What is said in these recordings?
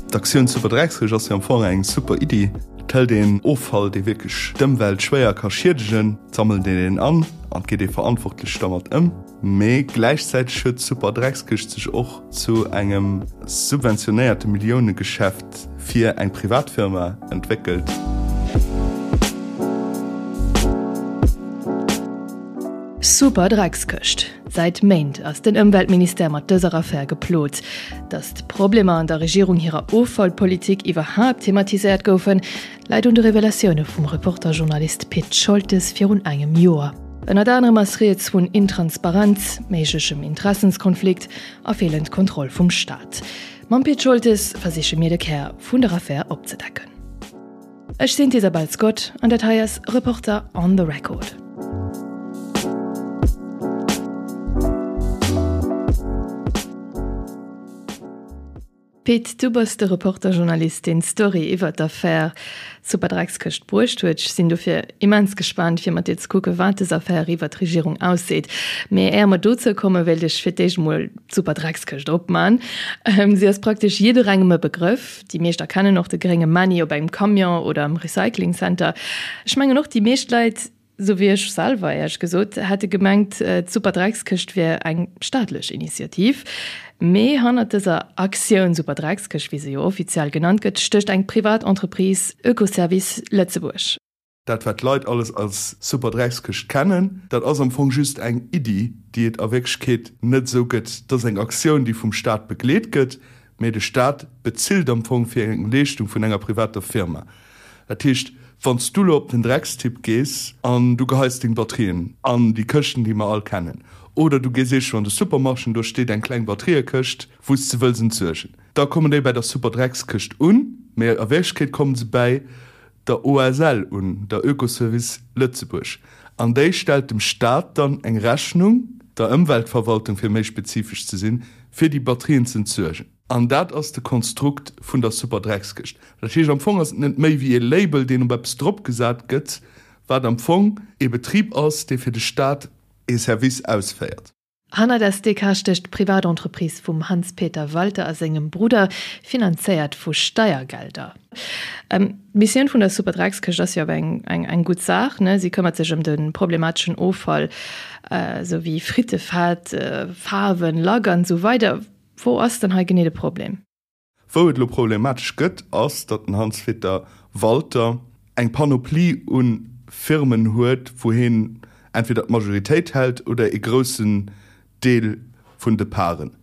D'Aktioun Superdreckskëscht ass jo am Fong eng super Iddi. Et hëlt een Offall, dee wierklech d'Ëmwelt schwéier ka schiedegen, sammelt een deen an an et geet ee verantwortlech dermat ëm. Mee gläichzäiteg huet d'Superdreckskëscht sech och zu engem subventionéierte Milliounegeschäft fir eng Privatfirma entwéckelt. Superdreckskëscht. Säit Méint ass den Ëmweltministère mat dëser Affär geplot. Datt d'Problemer an der Regierung hirer Offallpolitik iwwerhaapt thematiséiert goufen, läit un de Revelatioune vum Reporter-Journalist Pit Scholtes virun engem Joer. Ënnert anerem ass rieds vun Intransparenz, méiglechem Interessenskonflikt a feelend Kontroll vum Staat. Mam Pit Scholtes versiche mir de Kär vun der Affär opzedecken. Ech sinn d'Isabel Scott an dat hei ass Reporter on the Record. Pit, du bass de Reporter-Journalist, deen d'Story iwwer d'Affär Superdreckskëscht bruecht huet. Ech sinn dofir immens gespaant, fir mat dir ze kucken, wat dës Affär iwwer d'Regierung ausseet. Mee éier mer dozou kommen, wéilt ech fir d'éischt emol d'Superdreckskëscht opman. Si ass praktesch jidderengem e Begrëff. Déi meescht erkennen och de grénge Männi op engem Camion oder am Recycling Center. Ech mengen och déi meescht Leit, sou wéi ech selwer éierlech gesot, hätte gemengt d'Superdreckskëscht wier eng staatlech Initiativ. Mee hannert dëser Aktioun Superdreckskëscht, wéi se jo offiziell genannt gëtt, stécht eng privat Entreprise, Oekoservice Lëtzebuerg. Dat wat d'Leit alles als Superdreckskëscht kennen, dat ass am Fong just eng Iddi, déi et a Wierklechkeet net esou gëtt. Dat ass eng Aktioun, déi vum Staat begleet gëtt, mee de Staat bezilt am Fong fir eng Leeschtung vun enger privater Firma. Dat heescht, wann s du elo op den Dreckstipp gees an du geheis deng Batterien an déi Këschten, déi mer all kennen, oder du gees eescho an de Supermarché an do steet eng kleng Batteriekëscht, wou s de wëlls entsuergen, da kommen déi bäi der Superdreckskëscht un, mee a Wierklechkeet komme se bäi der OSL un, der Oekoservice Lëtzebuerg, an déi stellt dem Staat dann eng Rechnung, der Ëmweltverwaltung fir méi spezifesch ze sinn, fir déi Batterien ze entsuergen. An dat ass de Konstrukt vun der Superdreckskëscht. Dat heescht, am Fong ass et net méi wéi ee Label, deen op eppes dropgesat gëtt, wat am Fong ee Betrib ass, dee fir de Staat ee Service ausféiert. Hannert SDK stécht d'Privatentreprise vum Hans-Peter Walter a sengem Brudder, finanzéiert vu Steiergelder. D'Missioun vun der Superdreckskëscht ass jo awer eng gutt Saach, ne? Si këmmert sech ëm de problemateschen Offall, esou wéi Frittefett, Faarwen, Lack an esou weider. Wou ass dann hei genee de Problem? Wou et elo problematesch gëtt, ass, datt den Hans-Peter Walter eng Panoplie u Firmen huet, wou hien entweder d'Majoritéit hält oder ee groussen Deel vun de Paren.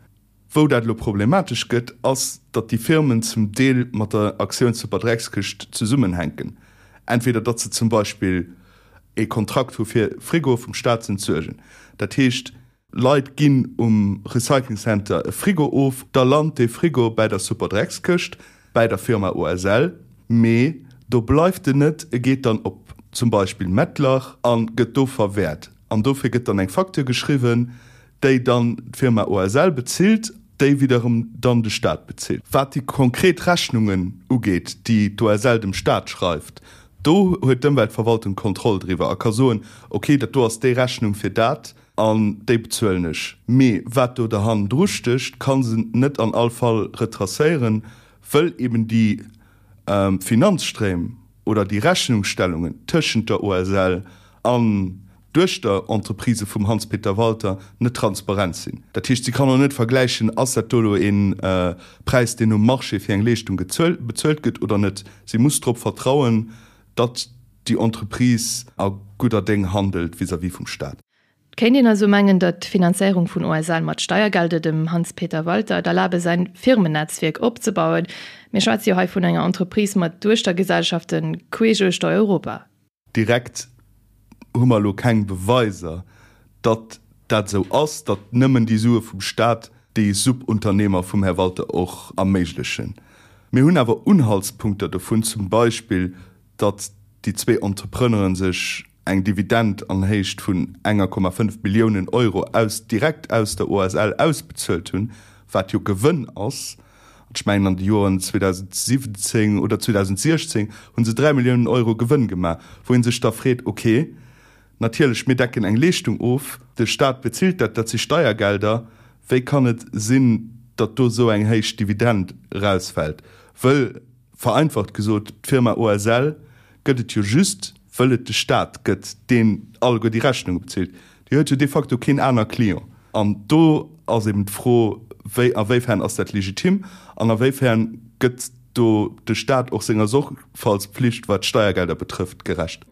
Wou dat elo problematesch gëtt, ass, datt déi Firmen zum Deel mat der Aktioun Superdreckskëscht zesummenhänken. Entweder datt se zum Beispill ee Kontrakt hu fir Frigoe vum Staat z'entsuergen. Dat heescht, Leit ginn um Recycling Center e Frigo of, da lant dee Frigo bäi der Superdreckskëscht, bäi der Firma OSL, mee do bleift en net, e geet dann op zum Beispill Mettlach a gëtt do verwäert. An dofir gëtt dann eng Facture geschriwwen, déi dann d'Firma OSL bezilt, déi widderem dann de Staat bezilt. Wat déi konkret Rechnungen ugeet, déi d'OSL dem Staat schreift, do huet d'Ëmweltverwaltung d'Kontroll driwwer a ka soen, ok, dat do ass déi Rechnung fir dat, An déi bezuelen ech. Mee wat do derhannendru stécht, ka se net an all Fall retracéieren, wëll eben déi Finanzstréim oder déi Rechnungsstellungen tëschent der OSL an Duechterentreprisë vum Hans-Peter Walter net transparent sinn. Dat heescht, si kann och net vergläichen, ass dat do elo ee Präis, deen um Marché fir eng Leeschtung bezuelt gëtt oder net. Si muss drop vertrauen, datt déi Entreprise a gudder Déng handelt vis-à-vis vum Staat. Et kéint een also mengen, datt d'Finanzéierung vun OSL mat Steiergelder dem Hans-Peter Walter et erlabe säin Firmennetzwierk opzebauen. Mir schwätze jo hei vun enger Entreprise mat Duechtergesellschafte queesch uechter Europa. Direkt hu mer elo keng Beweiser, datt dat esou ass, datt nëmmen déi Sue vum Staat déi Subunternehmer vum Här Walter och erméiglechen. Mir hunn awer Unhaltspunkter dovun, zum Beispill datt déi zwee Entrepreneuren sech eng Dividend an Héicht vun enger Komma 5 Milliounen Euro aus direkt aus der OSL ausbezuelt hunn, wat jo Gewënn ass. An ech mengen an de Joren 2017 oder 2016 hu se 3 Milliounen Euro Gewënn gemaach, wou ee sech da freet, okay, natierlech, mir decken eng Leeschtung of, de Staat bezilt dat, dat si Steiergelder, wéi kann et sinn, datt do esou eng héich Dividend erausfält? Wëll, vereinfacht gesot, d'Firma OSL gëtt et jo just, wëll et de Staat gëtt, deen alleguer déi Rechnunge bezilt. Déi huet jo de facto keen aner Client. An do ass eben d'Fro, wéi, a wéifern ass dat legitim an a wéifern gëtt do de Staat och senger Sorgfaltspflicht, wat d'Steiergelder betrëfft, gerecht?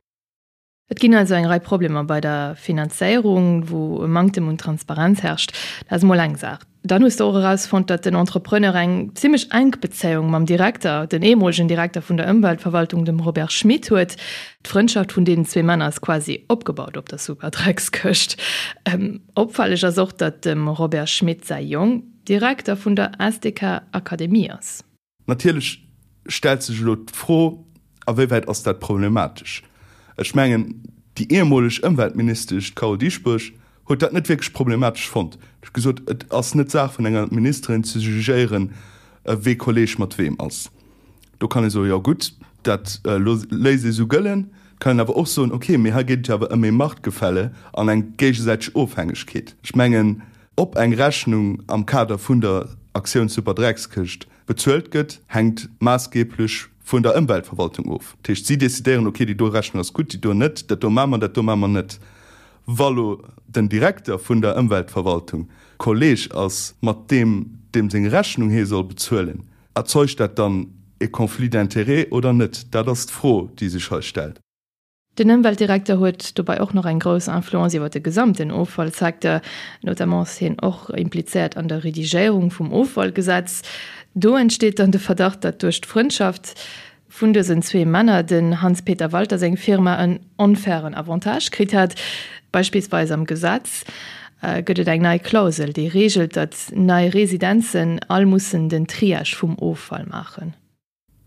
Et ginn also eng Rei Problemer bei der Finanzéierung, wou e Manktem un Transparenz herrscht. Dat ass emol eng Saach. Dann hues de och erausfonnt, datt den Entrepreneur eng zimmlech enk Bezéiung mam Direkter, den ehemolegen Direkter vun der Ëmweltverwaltung, dem Robert Schmit, huet. D'Frëndschaft vun deenen zwee Männer ass quasi opgebaut op der Superdreckskëscht. Opfälleg ass och, datt dem Robert Schmit säi Jong Direkter vun der SDK Akademie ass. Natierlech stellt sech elo d'Fro, A wéiwäit ass dat problematesch? Ech mengen, déi ehemoleg Ëmweltministesch, d'Carole Dieschbourg, huet dat net wierklech problematesch fonnt. Si huet gesot, et ass net d'Saach vun enger Ministerin ze jugéieren, wee Kolleeg mat weem ass. Do kann ee soen, jo gutt, dat léisst ee sou gëllen. Et kann een awer och soen, okay, mee hei geet et jo awer ëm ee Machtgefälle an eng géigesäiteg Ofhängegkeet. Ech mengen, ob eng Rechnung am Kader vun der Aktioun Superdreckskëscht bezuelt gëtt, hänkt maassgeeblech vun der Ëmweltverwaltung of. Dat heescht, si decidéieren, okay, déi do Rechnung ass gutt, déi do net, dat do maache mer, dat do maache mer net. Wa lo den Direkter vun der Ëmweltverwaltung Kolleeg ass mat deem, deem seng Rechnung hie soll bezuelen, erzeugt dat dann e Conflit d'intérêts oder net? Dat ass d'Fro, déi sech hei stellt. Den Ëmweltdirekter huet dobei och nach eng grouss Influence iwwer de gesamten Offallsecteur. Notamment ass hien och implizéiert an der Redigéierung vum Offallgesetz. Do entsteet dann de Verdacht, datt duerch d'Frëndschaft vun dësen zwee Männer den Hans-Peter Walter seng Firma en onfairen Avantage kritt hat. Beispillsweis am Gesetz gëtt et eng nei Klausel, déi reegelt, datt nei Residenzen all mussen den Triage vum Offall maachen.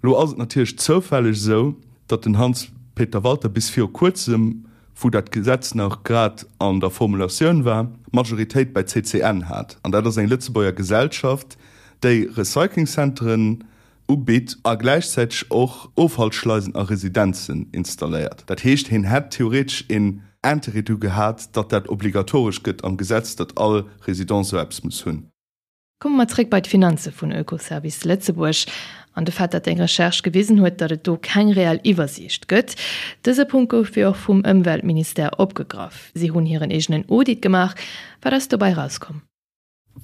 Lo ass et natierlech zoufälleg esou, datt den Hans-Peter Walter bis viru kuerzem, wou dat Gesetz nach grad an der Formulatioun war, d'Majoritéit bei CCN hat. An dat ass eng Lëtzebuerger Gesellschaft, déi Recyclingcenteren ubitt a gläichzäiteg och Offallschleisen a Residenzen installéiert. Dat heescht, hien hätt theoretesch een Intérêt dru gehat, datt dat obligatoresch gëtt am Gesetz, datt all Résidence esou eppes muss hunn. Komme mer zréck bei d'Finanze vun Oekoservice Lëtzebuerg an de Fait, datt eng Recherche gewisen huet, datt et do keng reell Iwwersiicht gëtt. Dëse Punkt gouf jo och vum Ëmweltministère opgegraff. Si hunn hiren eegenen Audit gemaach. Wat ass dobäi erauskomm?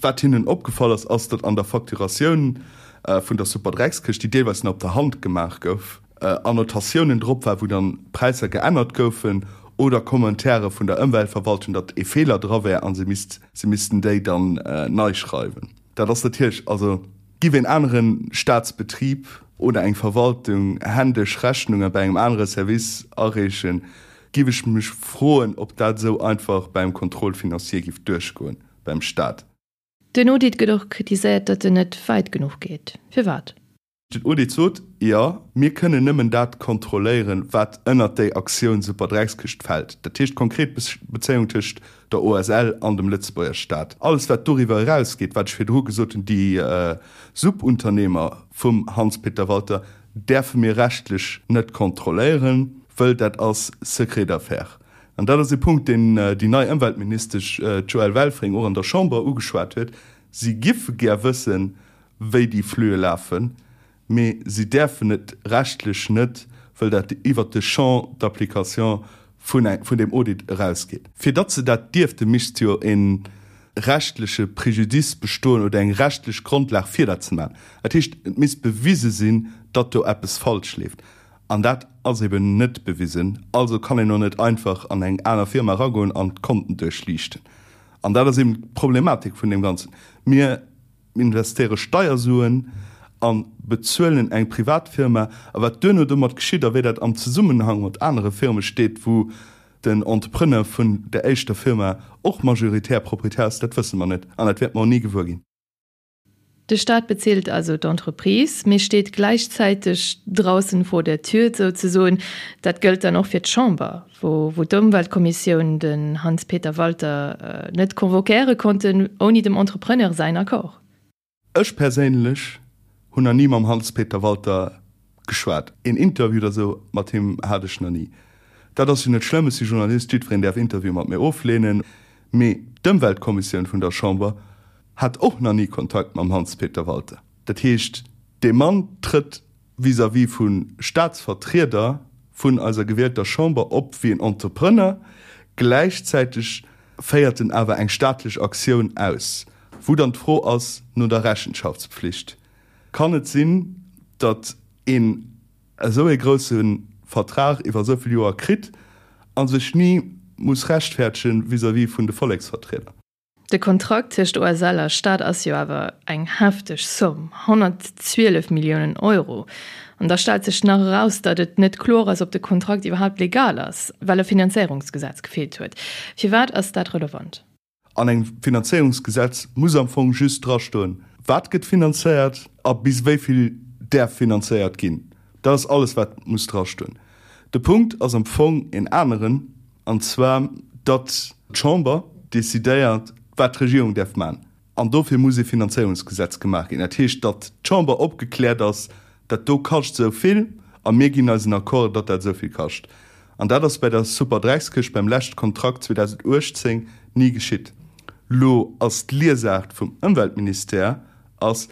Wat hinnen opgefall ass, ass, datt an der Facturatioun vun der Superdreckskëscht, déi deelweis nach op der Hand gemaach gouf, Annotatiounen drop war, wou dann Präisser geännert goufen oder Commentaire vun der Ëmweltverwaltung, datt ee Feeler dra wär a se misst, se missten déi dann nei schreiwen. Dat ass natierlech, also giff een anere Staatsbetrib oder eng Verwaltung händesch Rechnunge bei engem anere Service areechen, giff ech mech froen, ob dat esou einfach beim Contrôle financier giff duerchgoen beim Staat. Den Audit gëtt och kritiséiert, datt en net wäit genuch geet. Firwat? Den Audit sot, Jo, mir kënnen nëmmen dat kontrolléieren, wat ënnert déi Aktioun Superdreckskëscht fält, dat heescht konkret d'Bezéiung tëscht der OSL an dem Lëtzebuerger Staat. Alles, wat doriwwer erausgeet, wat ech virdru gesot hunn, déi Subunternehmer vum Hans-Peter Walter, däerfe mir rechtlech net kontrolléieren, wëll dat ass Secret d'affaires. An dat ass e Punkt, deen déi nei Ëmweltministesch, d'Joëlle Welfring, och an der Chamber ugeschwat huet. Si giffe gär wëssen, wéi déi Flüe lafen, mee si däerfen et rechtlech net, wëll dat iwwert de Champ d'application vun vun deem Audit erausgeet. Fir datt se dat dierften, misst jo e rechtleche Préjudice bestoen oder eng rechtlech Grondlag fir dat ze maachen. Dat heescht, et misst bewise sinn, datt do eppes falsch leeft. An dat ass eben net bewisen. Also kann een och net einfach an eng aner Firma eragoen an d'Konten duerchliichten. An dat ass eben d'Problematik vun deem Ganzen. Mir investéiere Steiersuen a bezuelen eng privat Firma. A wat duerno domat geschitt a wéi dat am Zesummenhang mat anere Firme steet, wou den Entrepreneur vun der éischter Firma och majoritär Proprietär ass, dat wësse mer net an dat wäerte mer och ni gewuer ginn. De Staat bezilt also d'Entreprise, mee steet gläichzäiteg draußen vor der Tür souzesoen. Dat gëllt dann och fir d'Chamber, wou d'Ëmweltkommissioun den Hans-Peter Walter net convoquéiere konnten, ouni dem Entrepreneur säin Accord. Ech perséinlech hunn nach ni mam Hans-Peter Walter geschwat. Een Interview oder sou mat him hat ech nach ni. Dat ass jo net schlëmm, ech si Journalist, jiddwereen däerf Interviewe mat mir ofleenen. Mee d'Ëmweltkommissioun vun der Chamber hat och nach ni Kontakt mam Hans-Peter Walter. Dat heescht. Dee Mann trëtt vis-à-vis vu Staatsvertrieder vun eiser gewielter Chamber op wéi en Entrepreneur, gläichzäiteg féiert en awer eng staatlech Aktioun aus, wou dann d'Fro ass no der Rechenschaftspflicht. Kann et sinn, datt een esou ee grousse Vertrag iwwer esou vill Joer kritt a sech ni muss rechtfäerdegen vis-à-vis vun de Volleksvertrieder? De Kontrakt tëscht OSL a Staat ass jo awer eng hefteg Somm, 112 Milliounen Euro. An da stellt sech nach eraus, datt et net kloer ass, ob de Kontrakt iwwerhaapt legal ass, well e Finanzéierungsgesetz gefeelt huet. Firwat ass dat relevant? An engem Finanzéierungsgesetz muss am Fong just drastoen, wat gëtt finanzéiert a bis wéi vill däerf finanzéiert ginn. Dat ass alles, wat muss drastoen. De Punkt ass am Fong een aneren, an zwar datt d'Chamber decidéiert, wat d'Regierung däerf maachen. An dofir muss ee Finanzéierungsgesetz gemaach ginn. Dat heescht, datt d'Chamber opgekläert ass, dat do kascht esou vill a mir ginn eisen Accord, datt dat esou vill kascht. An dat ass bei der Superdreckskëscht beim leschte Kontrakt 2018 ni geschitt. Lo ass d'Liesaart vum Ëmweltministère ass,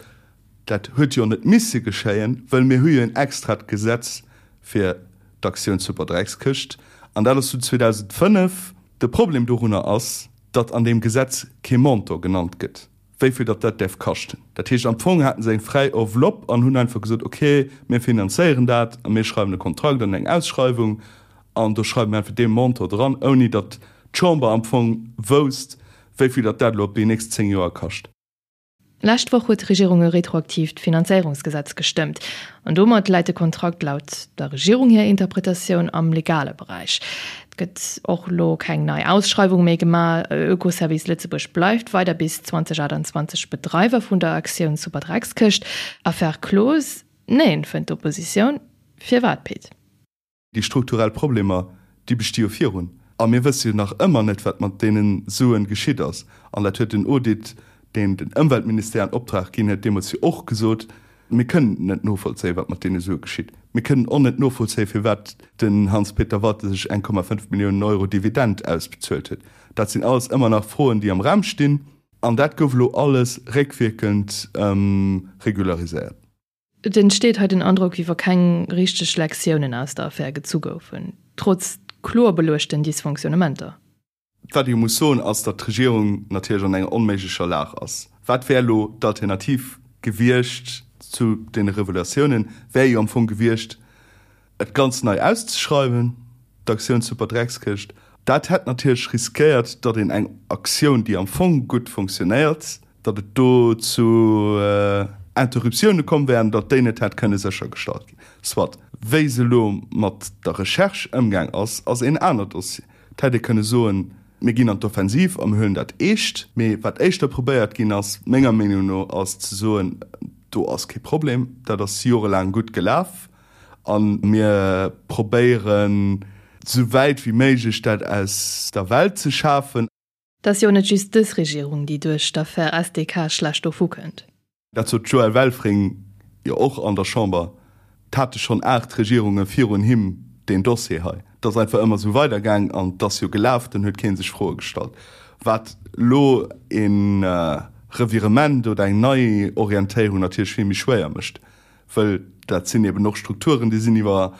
Dat huet jo net misse geschéien, wëll mir hu jo en extrat Gesetz fir d'Aktioun Superdreckskëscht, an dat ass vun 2005. De Problem dorunner ass, datt an deem Gesetz kee Montant genannt gëtt, wéi vill datt dat däerf kaschten. Dat heescht, am Fong haten se eng fräi Enveloppe an hunn einfach gesot, okay, mir finanzéieren dat a mir schreiwen e Kontrakt an eng Ausschreiwung an do schreiwe mir einfach dee Montant dran, ouni datt d'Chamber am Fong wousst, wéi vill datt dat elo op déi nächst 10 Joer kascht. Lescht Woch huet d'Regierung e retroaktiivt Finanzéierungsgesetz gestëmmt. An domat läit de Kontrakt laut der Regierung hir Interpretatioun am legale Beräich. Et gëtt och elo keng nei Ausschreiwung méi gemaach. Oekoservice Lëtzebuerg bleift weider bis 2028 Bedreiwer vun der Aktioun Superdreckskëscht. Affaire close? Neen, fënnt d'Oppositioun. Firwat, Pit? Déi strukturell Problemer, déi besti jo virun. A mir wësse jo nach ëmmer net, wat mat deene Suen geschitt ass. An dat huet den Audit, deen den Ëmweltministère an Optrag ginn huet, deemools jo och gesot, Mir kënnen net novollzéien, wat mat deene Sue geschitt. Mir kënnen och net novollzéien, firwat den Hans-Peter Walter sech 1,5 Milliounen Euro Dividend ausbezuelt huet. Dat sinn alles ëmmer nach Froen, déi am Raum stinn. An dat gouf elo alles réckwierkend regulariséiert. Et entsteet hei den Androck, wéi wa keng richteg Lektiounen aus der Affär gezu goufen, trotz kloer beluechten Dysfonctionnementer. Wat ee jo muss soen, ass, datt d'Regierung natierlech an enger onméiglecher Lag ass. Wat wär elo d'Alternativ gewiescht zu deene Revelatiounen? Wär jo am Fong gewiescht, et ganz nei auszeschreiwen, d'Aktioun Superdreckskëscht. Dat hätt natierlech riskéiert, datt een eng Aktioun, déi am Fong gutt fonctionnéiert, datt et do zu Interruptioune komm wär an datt déi net hätt kënne séchergestallt ginn. Soit. Wéi se elo mat der Recherche ëmgaang ass, ass een aner Dossier. Et hätt ee kënne soen, mir ginn an d'Offensiv a mir huelen dat eescht. Mee wat éischter probéiert ginn ass, menger Meenung no, ass ze soen, do ass kee Problem, dat ass jorelaang gutt gelaf A mir probéieren, esou wäit wéi méiglech dat aus der Welt ze schafen. Et ass jo net just dës Regierung, déi duerch d'Affär SDK schlecht dovu kënnt. Dat sot d'Joëlle Welfring jo och an der Chamber. Et hate schonn 8 Regierunge virun him deen Dossier hei. Et ass einfach ëmmer esou weidergaang an et ass jo gelaf, dann huet kee sech Froe gestallt. Wat elo e Revirement oder eng Neiorientéierung natierlech vill méi schwéier mécht. Wëll dat sinn eben och Strukturen, déi sinn iwwer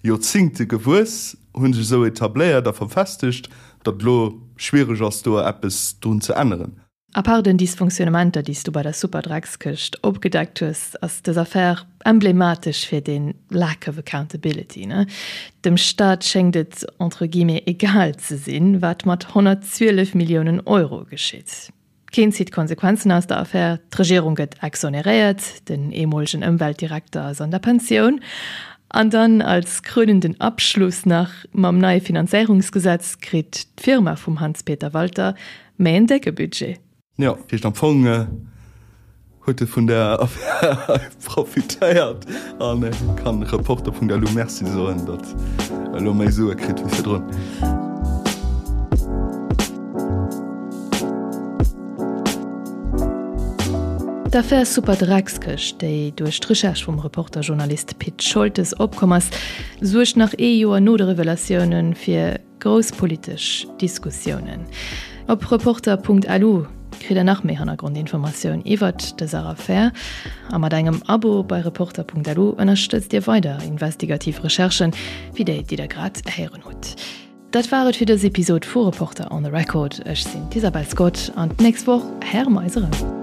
Joerzingte gewuess, hu sech esou etabléiert a verfestegt, datt elo schwiereg ass, do eppes drun ze änneren. À part den Dysfonctionnementer, déi s du bei der Superdreckskëscht opgedeckt hues, ass dës Affär emblematesch fir dee Lack of accountability, ne? Dem Staat schéngt et entre guillemets egal ze sinn, wat mat 112 Milliounen Euro geschitt. Keen zitt Konsequenzen aus der Affär, d'Regierung gëtt exoneréiert, den eemolegen Ëmweltdirekter ass an der Pensioun. An dann als krönenden Abschluss nach, mam neie Finanzéierungsgesetz kritt d'Firma vum Hans-Peter Walter méi en décke Budget. Jo, dat heescht am Fong huet e vun der Affär hei profitéiert a kann Reporter.lu Merci soen, datt e lo méi Sue kritt wéi virdrun. D'Affär Superdreckskëscht, déi duerch d'Recherche vum Reporter-Journalist Pit Scholtes opkomm ass, suergt nach ee Joer no de Revelatioune fir Grouss politesch Diskussiounen. Op Reporter.lu. Kritt der nach méi Hannergrondinformatioun iwwert dëser Affär. A mat engem Abo bei Reporter.lu ënnerstëtzt Dir weider investigativ Recherchen, wéi déi, déi der grad héieren hutt. Dat war et fir dës Episod vu Reporter on the Record. Ech sinn d'Isabel Scott an d'nächst Woch héiere mer eis erëm.